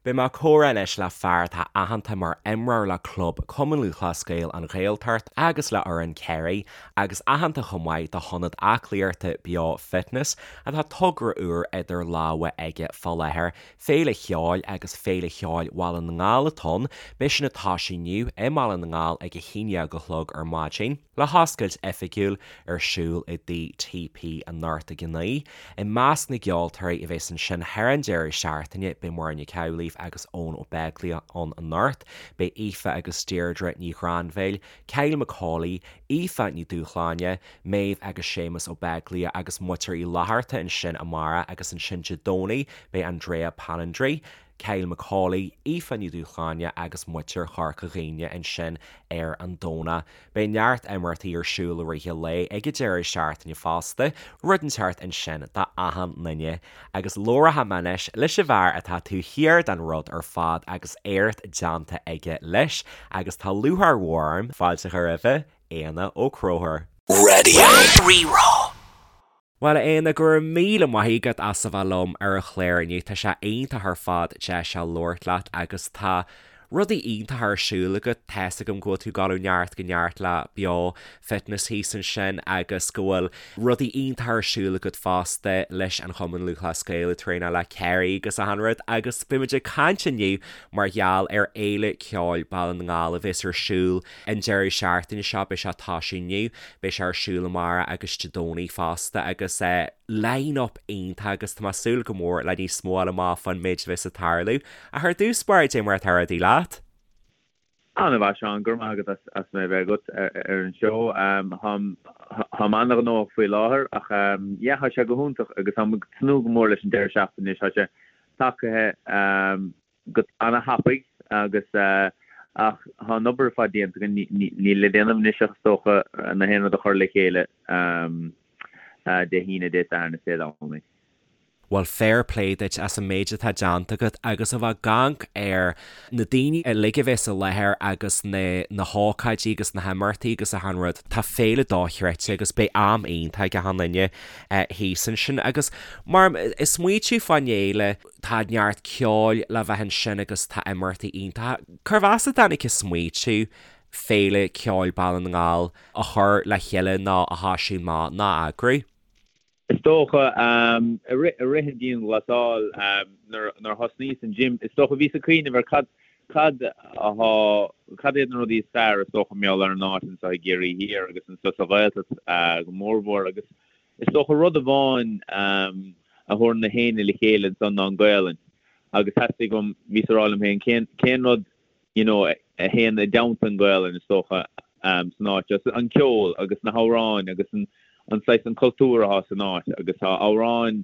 Beidh mé ag comhrá anois le fear atá aitheanta mar imreoir le club Cumann Lúthchleas Gael An Ghaeltacht agus le fhoireann Kerry agus aitheanta chomh maith do hionad aclaíochta Beo Fitness atá togra úr idir lámha aige fá láthair, Féile Cheoil agus Féile Cheoil Bhaile na nGall atá ann. Beidh sin ag toisiú inniu i mBaile na nGall ag 11 a chlog ar maidin. Le hoscailt oifigiúil ar siúl i dTigh TP anocht ag 9. I measc na gceoltóirí a bheas ansin thar an deireadh seachtaine beidh Muireann Nic Amhlaoibh agus Eoin Ó Beaglaoich ann anocht, beidh Aoife agus Deirdre Ní Ghrainbhéil, Kyle Macaulay, Aoife Ní Dúshláine, Méabh agus Séamus Ó Beaglaoich agus Muintir Uí Fhlatharta ansin amárach agus ansin Dé Domhnaigh beidh Andrea Palandri, Kyle Macaulay, Aoife Ní Dhúshláine agus Muintir Chorca Dhuibhne ansin ar an Domhnach. Beidh neart imeachtaí ar siúl i rith an lae ag an deireadh seachtaine fosta, rud inteacht ansin do achan nduine. Agus labhróidh mé anois leis an bhfear atá taobh thiar den rud ar fad agus éacht déanta aige leis agus tá lúcháir mhór orm fáilte a chur roimhe, Éanna Ó Conchúir. Radio Rí-Rá. Bhuel, a Éanna, go raibh míle maith agat as a bheith liom ar an chlár inniu. Tá sé iontach ar fad deis a labhairt leat agus tá rudaí iontacha ar siúl agat. Tá's agam go bhfuil tú ag dul ó neart go neart le Beo Fitness thíos ansin agus go bhfuil rudaí iontacha ar siúl agat fosta leis an Chumann Lúthchleas Gael, ag traenáil le Kerry agus achan rud. Agus beimid ag caint inniu mar gheall ar Fhéile Ceoil Baile na nGall a bheas ar siúl An deireadh seachtaine seo, beidh sé ag toisiú inniu, beidh sé ar siúl amárach agus Dé Domhnaigh fosta agus line-up iontach agus tá mé ag súil go mór le níos mó a fháil amach fán méid a bheas ag tarlú. Ach ar dtús báire, cad é mar atá rudaí leat? An-mhaith, Seán, go raibh maith agat as mé a bheith agat ar an seó. Táim an-ghnóthach faoi láthair ach yeah, tá sé go hiontach agus táim ag tnúth go mór leis an deireadh seachtaine anois. Tá sé tagtha. go ana-thapaidh agus ach tá an obair ar fad déanta againn, níl le déanamh anois ach is dócha na haon rud a chur le chéile Dé hAoine, Dé Sathairn is Dé Domhnaigh. Bhuel fair play duit as an méid atá déanta agat agus a bheith ag amharc ar na daoine uilig a bheas i láthair agus na na hócáidí agus na himeachtaí agus achan rud. Tá féile dochreidte agus beidh am iontach ag achan duine thíos ansin agus mar ag smaoitiú fán fhéile, Tá neart ceoil le bheith ansin agus tá imeachtaí iontacha. Cérbh as a dtáinig an smaoitiú Féile Ceoil Baile na nGall a chur le chéile nó a thoisiú amach nó a eagrú? Is dócha, i rith an dianghlasáil, nuair a thosnaíos an gym, is dócha bhíos ag cuimhneamh ar cad cad atá, cad iad na rudaí is fearr is dócha mar gheall ar an áit anseo i gCiarraí Thiar agus anseo sa Ghaeltacht go mórmhór agus Is dócha rud amháin a thabharann na héinne le chéile ansan ná an Gaolainn agus theastaigh uaim, bhíos ag rá liom féin, cén, cén rud you know a théann i dteannta an Ghaolainn is dócha san áit seo, an ceol agus na hamhráin agus an, an saghas, an cultúr atá san áit agus tá amhráin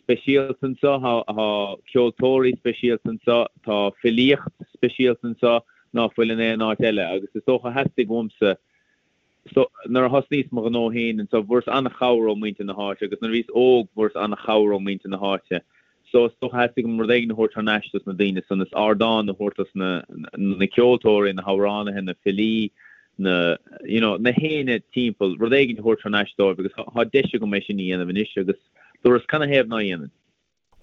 speisialta anso, tá, tá ceoltóirí speisialta anso, tá filíocht speisialta anso ná fuil in aon áit eile agus is dócha theastaigh uaimsa So, nuair a thosnaíos mo ghnó féin anso, bhfuaireas an-chabhair ó muintir na háite agus nuair a bhíos óg bhfuaireas an-chabhair ó muintir na háite. So, is dócha theastaigh uaim rud éigin a thabhairt thar n-ais dos na daoine san, is ardán a thabhairt dos na, na ceoltóirí, na hamhránaithe, na filí, na, you know, na héinne timpeall, rud éigin a thabhairt thar n-ais dóibh agus tá deis agam é sin a dhéanamh anois agus dúras canathaobh ná dhéanfainn?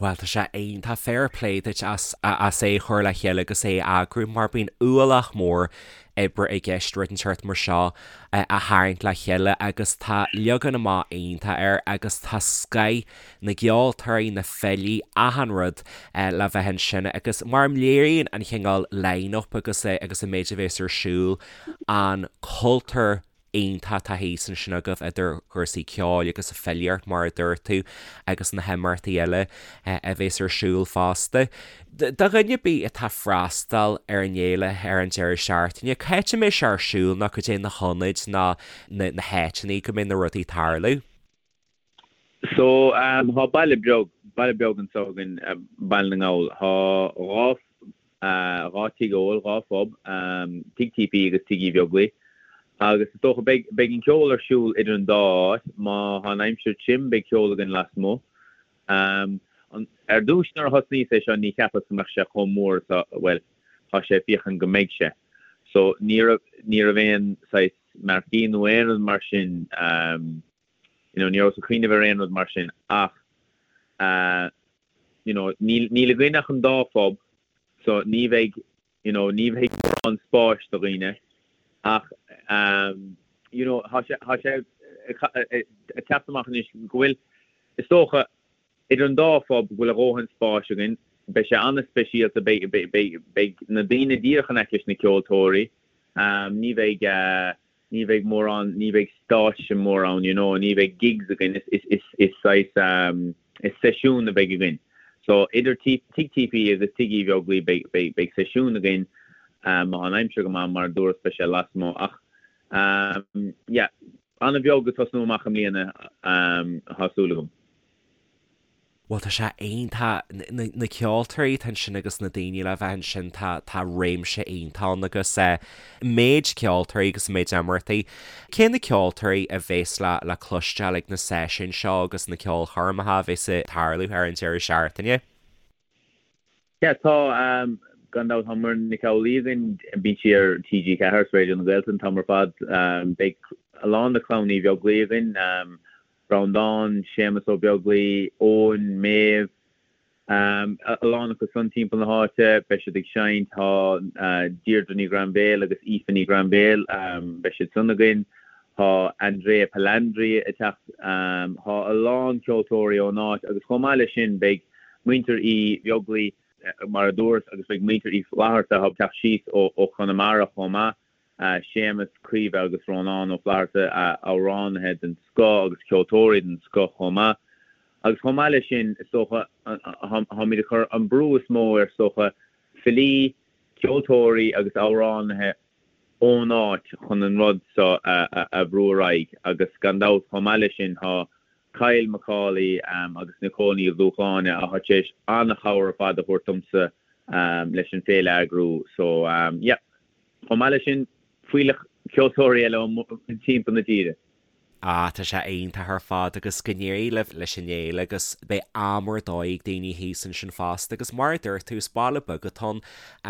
Bhuel, tá sé iontach, fair play duit as as é a chur le chéile agus é a eagrú mar bíonn ualach mór oibre i gceist rud inteacht mar seo a tharraingt le chéile agus tá leagan amach iontach air agus tá scoth na gceoltóirí, na filí, achan rud le bheith ansin agus mar léiríonn an chineál line-up agus agus an méid a bhéas ar siúl an cultúr iontach atá thíos ansin agaibh idir chúrsaí ceoil agus filíocht mar a dúirt tú agus na himeachtaí eile a bhéas ar siúl fosta. Do dhuine ar bith atá ag freastal ar an fhéile ar an deireadh seachtaine, cá háit a mbeidh sé ar siúl nó cad é na hionaid nó na háiteanna go mbeidh na rudaí ag tarlú? So, tá baile beag, baile beag anso againn, Baile na nGall. Tá dhá, dhá tigh óil, dhá phub, Tigh TP agus Tigh Uí Bheaglaoich. Agus is dócha, beidh, beidh an ceol ar siúl idir an dá áit. Má tá an aimsir tirim, beidh ceol againn lasmuigh. Ar dtús nuair a thosnaíos é seo, ní cheapas go mbeadh sé chomh mór is a, bhuel, tá sé féachaint go mbeidh sé. So, ní raibh, ní raibh aon saghas marquee nó aon rud mar sin, you know, ní rabhas ag cuimhneamh ar aon rud mar sin ach, you know, níl, níl againn ach an dá phub. So ní bheidh, you know, ní bheidh mórán spáis do dhaoine ach you know, tá sé, tá sé ag teacht amach anois go bhfuil, is dócha, idir an dá phub go bhfuil a dhóthain spáis againn. Beidh sé an-speisialta, beidh, beidh, beidh na daoine díreach in aice leis na ceoltóirí. Ní bheidh, ní bheidh mórán, ní bheidh stáitse mór ann, you know, ní bheidh gigs againn, is, is, is saghas, is seisiún a bheidh againn. So idir Tigh TP agus Tigh Uí Bheaglaoich beidh, beidh, beidh seisiún againn, má tá an aimsir go maith, mar a dúras beidh sé lasmuigh ach, yeah, an-bheag ag tosnú amach i mbliana, tá súil agam. Bhuel tá sé iontach, na ceoltóirí atá ansin agus na daoine le bheith ansin, tá tá réimse iontach ann agus méid ceoltóirí agus méid imeachtaí. Cé na ceoltóirí a bhéas le le cloisteáil ag na seisiúin seo agus na ceolchoirmeacha a bhéas ag tarlú ar an deireadh seachtaine? Yeah tá, gan dabht tá Muireann Nic Amhlaoibh againn, bíonn sí ar TG4 is Raidió na Gaeltachta an t-am ar fad. Beidh a lán de chlann Uí Bheaglaoich againn, Breandán, Séamus Ó Beaglaoich, Eoin, Méabh, a lán acu san timpeall na háite, beidh siad ag seinnt, tá Deirdre Ní Ghrainbhéil agus Aoife Ní Ghrainbhéil, beidh siad san againn, tá Andrea Palandri ag teacht, tá a lán ceoltóirí ón áit agus chomh maith leis sin beidh muintir Uí Bheaglaoich, mar a dúras, agus beidh muintir Uí Fhlatharta ag teacht síos ó Chonamara chomh maith. Séamus, Caoimhe agus Rónán Ó Flatharta, amhránaithe den scoth agus ceoltóirí den scoth chomh maith. Agus chomh maith leis sin, is dócha, táimid ag cur an brú is mó ar, is dócha, filí, ceoltóirí agus amhránaithe ón áit chun an rud seo a bhrú ar aghaidh. Agus gan dabht, chomh maith leis sin, tá Kyle Macaulay agus Nicole Ní Dhúshláine atá tar éis an-chabhair ar fad a thabhairt domsa leis an féile a eagrú. So, yeah. Chomh maith leis sin, fuílleach ceoltóirí eile ó timpeall na tíre. Ah, tá sé iontach ar fad agus go n-éirí libh leis an fhéile agus beidh am ar dóigh ag daoine thíos ansin fosta agus mar a dúirt tú, is baile beag atá ann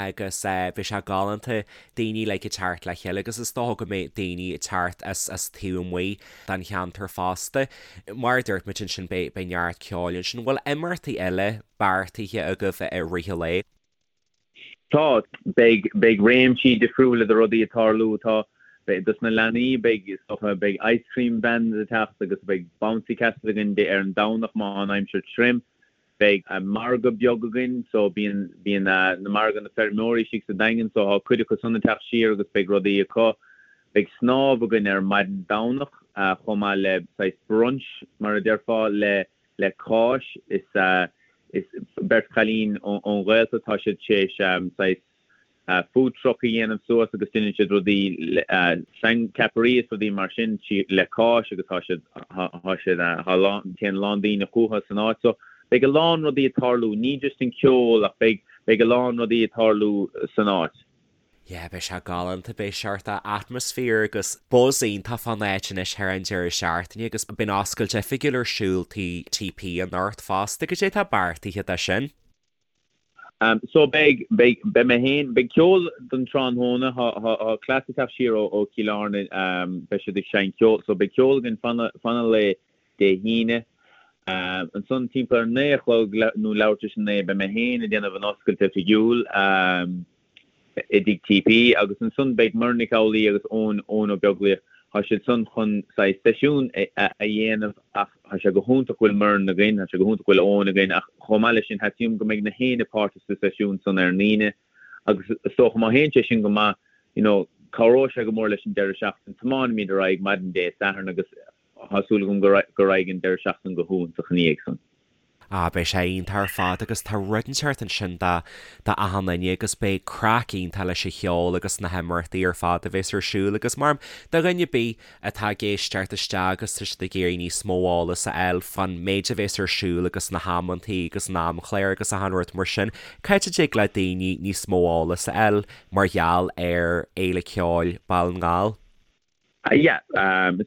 agus beidh sé galánta daoine like ag teacht le chéile agus is dócha go mbeidh daoine ag teacht as as taobh amuigh den cheantar fosta. Mar a dúirt muid ansin beidh beidh neart ceoil ansin. Bhfuil imeachtaí eile beartaithe agaibh i rith an lae? Tá. Beidh, beidh réimsí difriúla de rudaí ag tarlú. Tá, beidh, dos na leanaí, beidh, is dócha, beidh ice cream vans ag teacht agus beidh bouncy castle againn ar an Domhnach má tá an aimsir tirim. Beidh margadh beag againn so bíonn, bíonn na margadh na feirmeoirí istigh sa Daingean so tá cuid acu san ag teacht siar agus beidh rudaí acu. Beidh snámh againn ar maidin Domhnach chomh maith le saghas brunch mar a déarfá le, le cáis. Is is beirt chailín ón Ghaeltacht, tá siad tar éis saghas food truck a dhéanamh suas agus déanann siad rudaí ceapairí is rudaí mar sin le cáis agus tá siad tá siad tá lán téann a lán daoine chucu san áit. So beidh a lán rudaí ag tarlú, ní just an ceol ach beidh beidh a lán rudaí ag tarlú san áit. Yeah, beidh sé galánta, beidh seort atmaisféar agus buzz iontach fán áit anois thar an deireadh seachtaine agus beidh an oscailt oifigiúil ar siúl Tigh TP anocht fosta. Cad é atá beartaithe dó sin? So beidh, beidh, beidh mé féin, beidh ceol don tráthnóna, tá, tá, tá cleas ag teacht siar ó, ó Chill Airne, beidh siad ag seinnt ceol, so beidh ceol againn fan, fan an lae Dé hAoine. Ansan timpeall ar 9 a chlog nó leathuair tar éis a 9 beidh mé féin ag déanamh an oscailt oifigiúil. I dTigh TP agus ansan beidh Muireann Nic Amhlaoibh agus Eoin, Eoin Ó Beaglaoich, tá siad san chun saghas seisiún a dhéanamh ach tá sé go hiontach go bhfuil Muireann againn, tá sé go hiontach go bhfuil Eoin againn ach chomh maith leis sin theastaigh uaim go mbeidh na héinne páirteach sa seisiún san ar an Aoine agus is dócha má théann sé sin go maith you know cabhróidh sé go mór leis an deireadh seachtaine, tiomáinimid ar aghaidh maidin Dé Sathairn agus tá súil agam go raghaidh an deireadh seachtaine go hiontach ina dhiaidh san. Ah, beidh sé iontach ar fad agus tá rud inteacht ansin do do achan duine agus beidh craic iontach leis an cheol agus na himeachtaí ar fad a bheas ar siúl agus mar do dhuine ar bith atá ag éisteacht isteach agus tá siad ag iarraidh níos mó eolas a fháil fán méid a bheas ar siúl agus na hamantaí agus an amchlár agus achan rud mar sin, cá háit a dtig le daoine níos mó eolas a fháil mar gheall ar Fhéile Ceoil Baile na nGall? Yeah,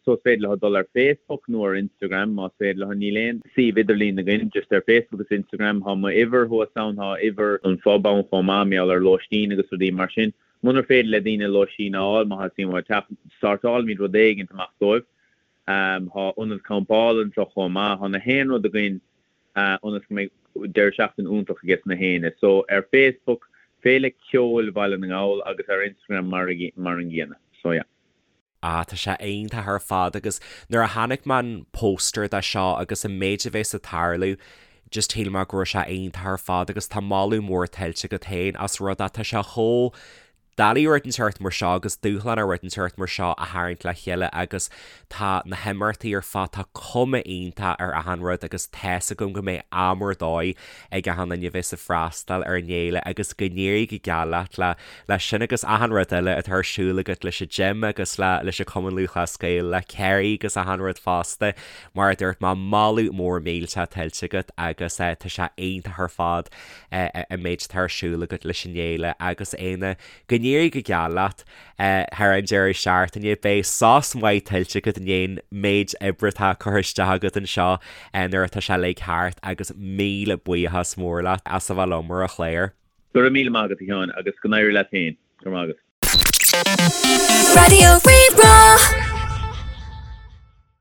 so is féidir leo dul ar Facebook nó ar Instagram más féidir leo. Níl aon suíomh idirlín againn, just ar Facebook agus Instagram. Tá m'uimhir thuas ann, tá uimhir an phub ann chomh maith, mar gheall ar lóistín agus rudaí mar sin. Munar féidir le daoine lóistín a fháil, má theastaíonn uathu teacht, sórtáilfimid rud éigint amach dóibh. Tá ionad campála anseo chomh maith. Tá na haon rud againn ionas go mbeidh deireadh seachtaine iontach aige sna héinne. So ar Facebook. Féile Ceoil Bhaile na nGall agus ar Instagram mar mar an gcéanna. So yeah. Ah tá sé iontach ar fad agus nuair a chonaic mé an póstaer de seo agus an méid a bheas ag tarlú just shíl mé go raibh sé iontach ar fad agus tá moladh mór tuillte agat féin as rud é tá sé chomh doiligh rud inteacht mar seo agus dúshlánach rud inteacht mar seo a tharraingt le chéile agus tá na himeachtaí ar fad tá cuma iontach ar achan rud agus tá's agam go mbeidh am ar dóigh ag achan duine a bheas ag freastal ar an fhéile agus go n-éirí go geal leat le leis sin agus achan rud eile atá ar siúl agat leis an gym agus le leis an Cumann Lúthchleas Gael le Kerry agus achan rud fosta. Mar a dúirt mé, moladh mór millteach tuillte agat agus tá sé iontach ar fad an méid atá ar siúl agat leis an fhéile agus Éanna, go n-éirí go geal leat thar an deireadh seachtaine. Beidh sos maith tuillte agat i ndiaidh an méid oibre atá curtha isteach agat anseo nuair atá sé uilig thart agus míle buíochas mór leat as a bheith liom ar an chlár. Go raibh míle maith agat a Sheáin agus go n-éirí leat féin. Go raibh maith agat. Raidió Rí-Rá.